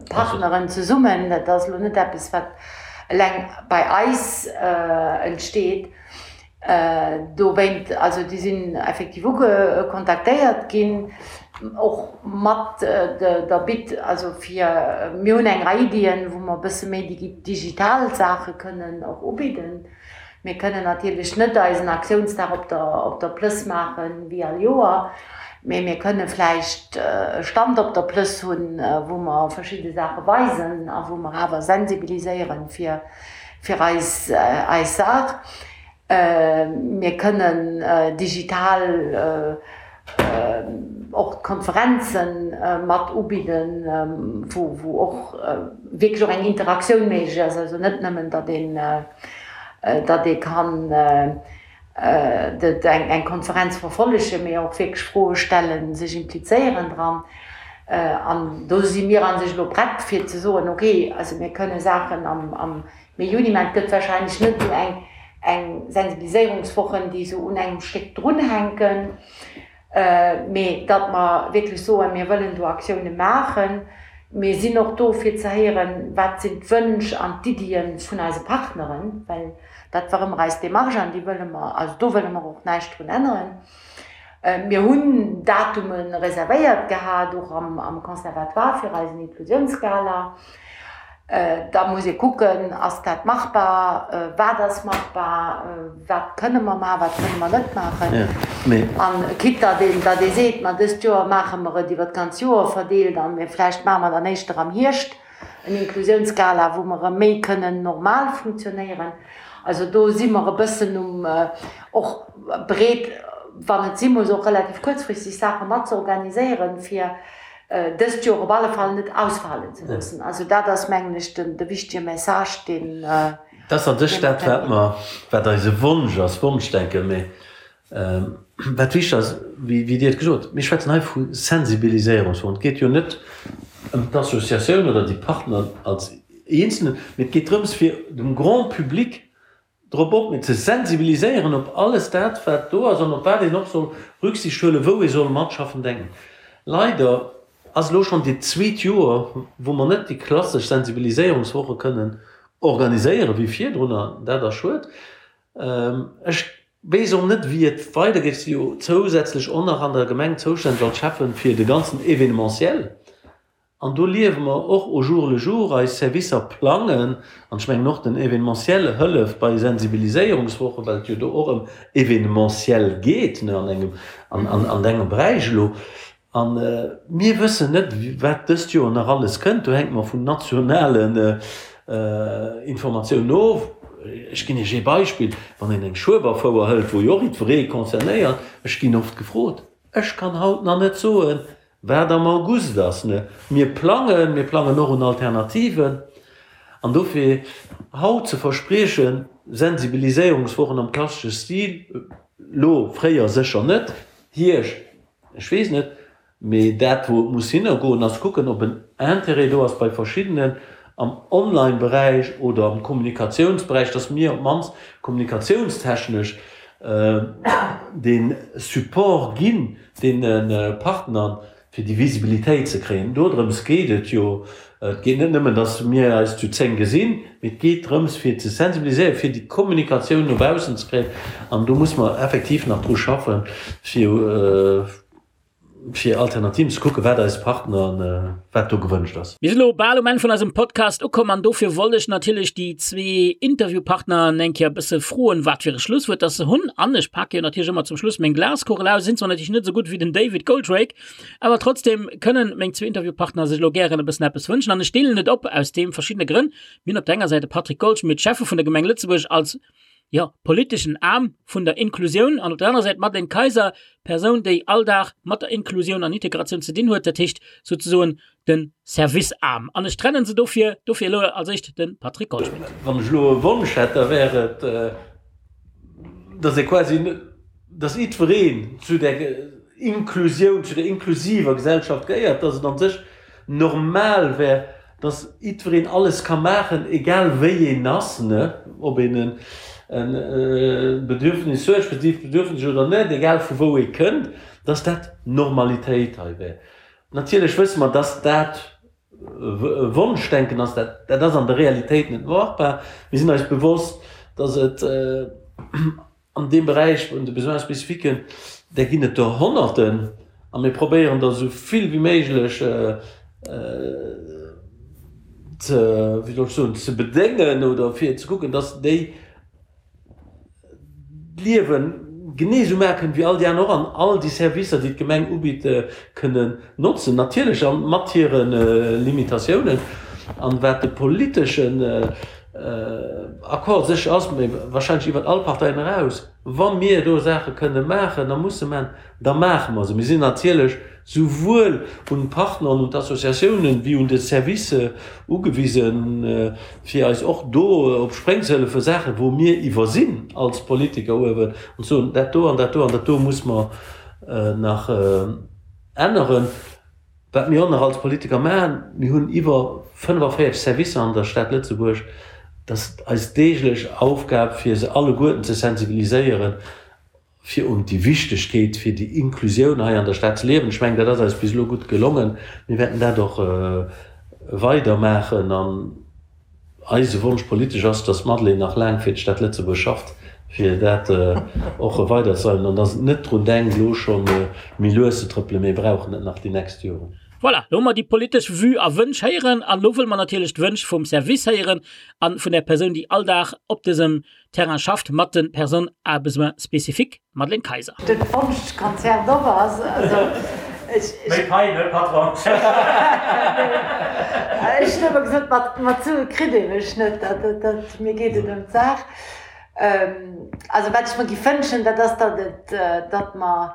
Partneren zesummen. Dat ass elo net eppes, wat eleng bei eis entsteet. Dowéint, also déi sinn effektiv uge kontaktéiert ginn, och mat der Bitt, also fir, mir hunn eng Rei Iddien, wou mer e bësse méi digital Saache kënnen och ubidden. Mir kënnen natierlech net eisen Aktiounsdag op der op der Plëss maache wéi all Joer, mee mir kënne vläicht e Stand op der Plëss hunn, wou mer verschidde Saache weisen a wou mer awer sensibiliséieren, fir fir eis eis Saach. Mir kënnen digital och d'Konferenze mat ubidden, wou wou och wierklech och eng Interaktioun méiglech ass, also net nëmmen, datt een datt ee kann eng Konferenz verfollegen, mee och wierklech Froe stellen, sech implizéieren dran. An do si mir a sech elo prett fir ze soen, okay, also mir kënne Saachen am Mee, Juni maachen. Et gëtt warscheinlech net esou eng Sensibiliséierungswochen, déi esou un engem Stéck drunhänken, mee datt mer wierklech soen, mir wëllen do Aktioune maachen. Mir sinn och do fir ze héieren, wat sinn d'Wënsch an d'Iddie vun eise Partneren, well dat war ëmmer eis Démarche an déi wëlle mer, also do wëlle mer och näischt drun änneren. Mir hunn Datume reservéiert gehat, och am Conservatoire fir eisen Inklusiounsgala. Da muss ee kucken, ass dat machbar, wat ass machbar, wat kënne mer maachen, wat kënne mer net maachen. An quitte datt een, datt ee seet, ma dëst Joer maache mer et iwwer d'ganz Joer verdeelt a mir vläicht maache mer dann éischter am Hierscht en Inklusiounsgala, wou mer erëm méi kënnen normal funktionéieren. Also do si mer e bëssen um och bereet, wann et si muss, och relativ kuerzfristeg Saache mat ze organiséieren, fir dëst Joer op alle Fall net ausfalen ze loossen. Also dat ass, mengen ech, de wichtige Message, deen. Dat ass an sech dat, wat mer, wat eise Wonsch ass, Wonschdenken, mä wat wichteg ass, wéi Dir et gesot hutt, mir schwätzen hei vu Sensibiliséierungsfonds. Et geet jo net ëm d'Associatioun oder déi Partner als Eenzelnen, mä et geet drëms, fir dem Grand public drop op, mee ze sensibiliséieren op alles dat, wat do ass an op wat een och soll Rücksicht huelen, wou ee soll matschaffen, denken. Leider ass elo schonn dat zweet Joer, wou mer net déi klassesch Sensibiliséierungswoche kënnen organiséieren, wéi virdrun, an dat ass schued. Ech weess och net, wéi et weidergeet. Ech si jo zousätzlech och nach an der Gemeng zoustänneg als Schäffen fir de ganzen Événementiel. An do liewe mer och au jour le jour, eis Servicer plangen, an ech mengen och den Événementiel hëlleft bei Sensibiliséierungswochen, well et jo do och ëm Événementiel geet, ne, an engem, an, an, an engem Beräich elo. A mir wëssen net, wat dëst Joer nach alles kënnt. Do hänke mer vun nationalen Informatiounen of. Ech ginn Iech ee Beispill, Wann een eng Schueberfouer hëlt, wou jo och jiddweree concernéiert, ech ginn oft gefrot, ech kann haut nach net soen, Wat am August ass, ne? Mir plangen, mir plangen och un Alternativen. An dofir haut ze verspriechen, Sensibiliséierungswochen am klassesche Stil, lo, fréier sécher net, Hierscht, ech weess net, mee dat wou et muss hinnergoen, ass kucken, ob en Intérêt do ass bei verschiddenen am Online-Beräich oder am Kommunikatiounsberäich, dass mir op d'mannst kommunikatiounstechnesch dee Support ginn, deene Partner, fir déi Visibilitéit ze kréien. Dodrëms geet et jo. Et geet net nëmmen, datt mir eis zu 10 gesinn, mee et geet drëms, fir ze sensibiliséieren, fir déi Kommunikatioun no baussen ze kréien. An do muss mer effektiv nach dru schaffen, fir. fir Alternativen ze kucken, wat eis Partner, wat do gewënscht ass. Mir sinn elo bal um Enn vun eisem Podcast ukomm an dofir wollt ech natierlech déi zwee Interviewpartner eng Kéier e bësse froen, wat fir e Schlusswuert dass se hunn. An ech pake jo natierlech ëmmer zum Schluss meng Glaskugel aus, sinn zwar natierlech net esou gutt wéi den David Goldrake, awer trotzdem kënnen meng zwee Interviewpartner sech elo gären e bëssen eppes wënschen an ech deelen et op aus deem verschiddene Grënn. Mir hunn op der enger Säit de Patrick Goldschmidt, Schäffe vun der Gemeng Lëtzebuerg als jo, politeschen Aarm vun der Inklusioun an op der anerer Säit d'Madeleine Kayser, Persoun, déi all Dag mat der Inklusioun an Integratioun ze dinn huet, dat heescht souzesoen de Service-Aarm. An ech trennen se dofir, dofir elo als éischt de Patrick Goldschmidt. Wann ech elo e Wonsch hätt, da wär et, dass ee quasi, dass jiddwereen zu där Inklusioun, zu der inklusiver Gesellschaft gehéiert, dass et an sech normal wär, dass jiddwereen alles ka maachen, egal wéi een ass, ne, ob een e Bedürfnis huet, spezifescht Bedürfnis oder net, egal vu wou ee kënnt, dass dat Normalitéit hei wär. Natierlech wësse mer, dass dat Wonschdenken ass, dat dat ass an der Realitéit net machbar. Mir sinn eis bewosst, dass et An deem Beräich vun de Besoins spécifiques, där ginn et der Honnerten a mir probéieren der esou vill wéi méiglech ze, wéi soll ech soen, ze bedéngen oder fir ze kucken, dass déi d'Liewe genee esou maache kënnen wéi all déi aner och an all déi Servicer, déi d'Gemeng ubitt, kënnen notzen. Natierlech mat hire Limitatiounen. An wat de politeschen Accord sécher ass, mee wahrscheinlech iwwert all Parteien eraus, wa mir do Saache kënne maachen a musse maachen, da maache mer se. Mir sinn natierlech souwuel un d'Partner an un d'Associatiounen wéi un de Service ugewisen, fir eis och do op Spréng ze hëllefen, Saachen, wou mir iwwersinn als Politiker uewen, an ze soen, dat do an dat do an dat do muss mer nach änneren. Wat mir och nach als Politiker maachen, mir hunn iwwer 45 Servicer an der Stad Lëtzebuerg, dat ass eis deeglech Aufgab fir se alleguerten ze sensibiliséieren, fir un déi Wichtegkeet fir déi Inklusioun hei an der Stad ze liewen. Ech mengen, dat ass eis bis elo gutt gelongen. Mir wäerten dat och weider maachen an Eise Wonsch politesch ass, dass d'Madeleine nach laang fir d'Stad Lëtzebuerg schafft, fir dat och weiderzedreiwen an dass et net drun denkt, elo scho méi lues ze trëppelen. Mir brauchen et nach déi nächst Joren. Voilà, lo hu mer déi politesch Vue a Wënsch héieren an elo wëlle mer natierlech d'Wënsch vum Service héieren a vun der Persoun, déi all Dag op dësem Terrain schafft mat de Personnes à besoins spécifiques, Madeleine Kayser. Den Wonschkonzert op ass, also ech. Méi Pai, ne Patron? Ech hunn ëmmer gesot, mat mat Sue kritt ee mech net, dat dat mir geet et ëm d'Saach. Also wat ech mer giff wënschen, dat ass, datt et, datt mer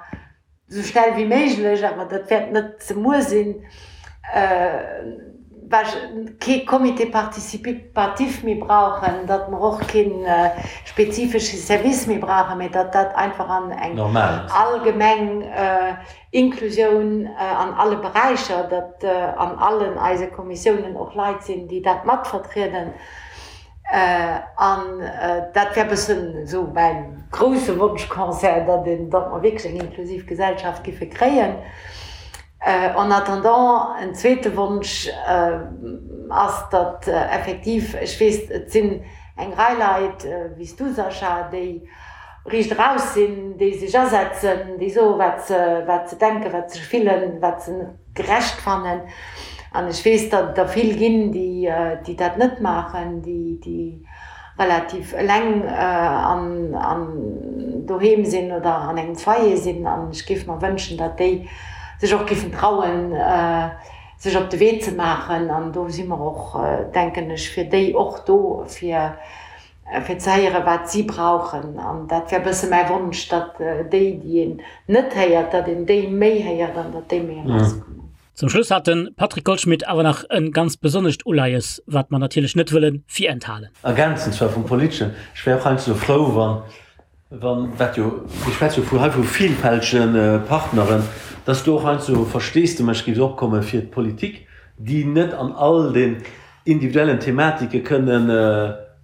esou schnell wéi méiglech, awer dat wäert net ze muer sinn, kee Comité participatif méi brauchen, datt mer och kee spezifesche Service méi brauchen, mä datt dat einfach an eng allgemeng Inklusioun an alle Beräicher, datt an allen eise Kommissiounen och Leit sinn, déi dat matvertrieden. An dat wär bëssen esou mäin grousse Wonschconcert, datt een, datt mer wierklech eng inklusiv Gesellschaft giffe kréien. En attendant, en zweete Wonsch ass, datt effektiv, ech weess, et sinn eng Rei Leit, wéi s du, Sascha, déi riicht eraus sinn, déi sech asetzen, déi soe wat se, wat se denken, wat se fillen, wat se net gerecht fannen. An ech weess, datt et der vill ginn, déi dat net maachen, déi relativ eleng an doheem sinn oder an engem Foyer sinn. An ech géif mer wënschen, datt déi sech och géifen trauen, sech op de Wee ze maachen. An do si mer och, denken ech, fir déi och do, fir fir ze héieren, wat si brauchen. An dat wär e bësse mäi Wonsch, datt déi, déi een net héiert, datt een déi méi héiert an datt déi méi erauskommen. Zum Schluss hat de Patrick Goldschmidt awer nach e ganz besonnescht Uleies, wat mer natierlech net wëlle virenthalen. Ergänzend zwar vum Politeschen, ech wär och heiansdo frou, wann, wann, wat jo, mir schwätze jo vu hei vu vielfältege Partneren, dass do och heiansdo Versteesdemech géif opkomme fir d'Politik, déi net an all den individuellen Thematike kënnen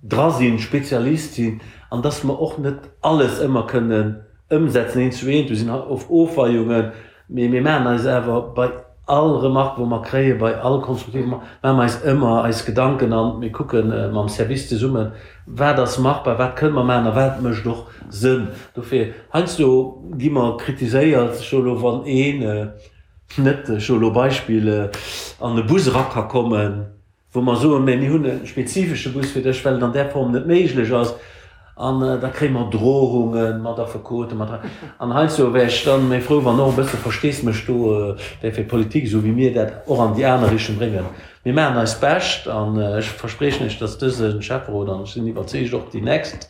dra sinn, Spezialist sinn, an dass mer och net alles ëmmer kënnen ëmsetzen eent zu eent. Do sinn oft Ofweiungen, mee mir maachen eis awer bei all Remarque, wou mer kréien, bei all konstruktiver Remarque, maache mer eis ëmmer eis Gedanken an mir kucke mam Service zesummen. Wat ass machbar, wat kënne mer maachen a wat mécht och Sënn? Dofir, heiansdo gi mer kritiséiert, ech soe elo, wann een net, ech soe elo Beispill, an e Bus era ka kommen, wou mer soen, mä mir hunn e spezifesche Bus fir dech, well et an där Form net méiglech ass, an da kréie mer Drohunge mat Affekoten, mat. An heiansdo wär ech dann méi frou, wann och e bësse Versteesmech do wär fir d'Politik, esou wéi mir dat och an déi aner Richtung bréngen. Mir maachen eist Bescht an ech verspriechen Iech, dass dëse Schäfferot, an ech sinn iwwerzeegt och déi nächst,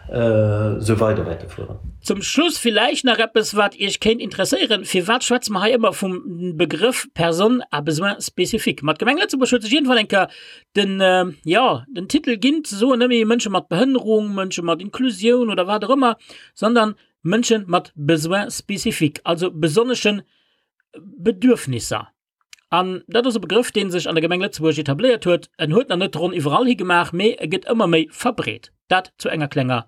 esou weider wäerte fueren. Zum Schluss villäicht nach eppes, wat Iech kéint interesséieren, Firwat schwätze mer hei ëmmer vum Begrëff Personnes à besoins spécifiques? Ma d'Gemeng Lëtzebuerg huet sech iergendwann eng Kéier den, jo, den Titel ginn, ze soen, net méi Mënsche mat Behënnerung, Mënsche mat Inklusioun oder wat och ëmmer, sondern Mënsche mat Besoins spécifiques, also besonnesche Bedürfnisser. An dat ass e Begrëff, dee sech an der Gemeng Lëtzebuerg etabléiert huet. En huet nach net d'Ronn iwwerall hi gemaach, mee e gëtt ëmmer méi verbreet. Dat zu enger klenger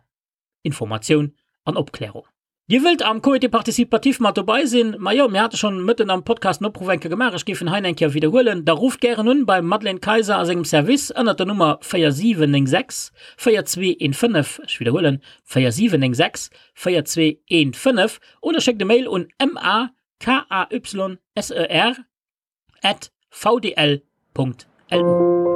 Informatioun an Opklärung. Dir wëllt am Comité participatif mat dobei sinn? Majo, mir hate schonn mëtten am Podcast en Opruff eng Kéier gemaach, ech géif en hei eng Kéier widderhuelen. Da rufft gären un beim Madeleine Kayser a sengem Service ënnert der Nummer 4796 4215, ech widderhuelen, 4796 4215, oder schéckt e Mail un ma K-A-Y-S-E-R at vdl Punkt lu.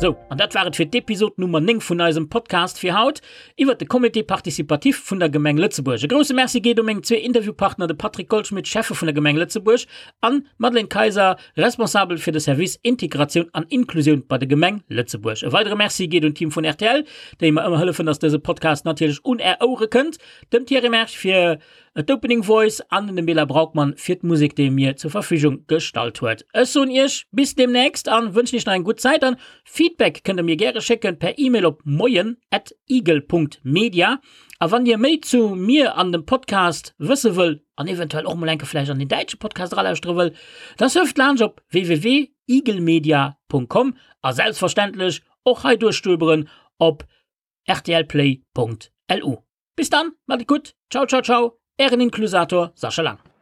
Sou, an dat war et fir d'Episod Nummer 9 vun eisem Podcast fir haut iwwert de Comité participatif vun der Gemeng Lëtzebuerg. E grousse Merci geet u meng zwee Interviewpartner, de Patrick Goldschmidt, Schäffe vun der Gemeng Lëtzebuerg, an d'Madeleine Kayser, Responsabel fir de Service Integratioun an Inklusioun bei der Gemeng Lëtzebuerg. E weidere Merci geet un d'Team vun rtl, déi mer ëmmer hëllefen, dass dëse Podcast natierlech un Är Ouere kënnt, dem Thierry Mersch fir d'Opening Voice an dem Bela Braukmann fir d'Musek, déi e mir zur Verfügung gestallt huet. Ech soen Iech bis deemnächst an wënschen Iech nach eng gutt Zäit an Feedback kënnt der mir gäre schécken per Email op moien at igel.media. A wann Dir méi zu mir an dem Podcast wësse wëll, an eventuell och mol enke vläicht an den däitsche Podcast eralauschtere wëll, da surft laanscht op www.igelmedia.com a selbstverständlech och hei duerchstöberen op rtlplay.lu. Bis dann, mat et gutt, ciao ciao ciao, ären Inklusator Sascha Lang.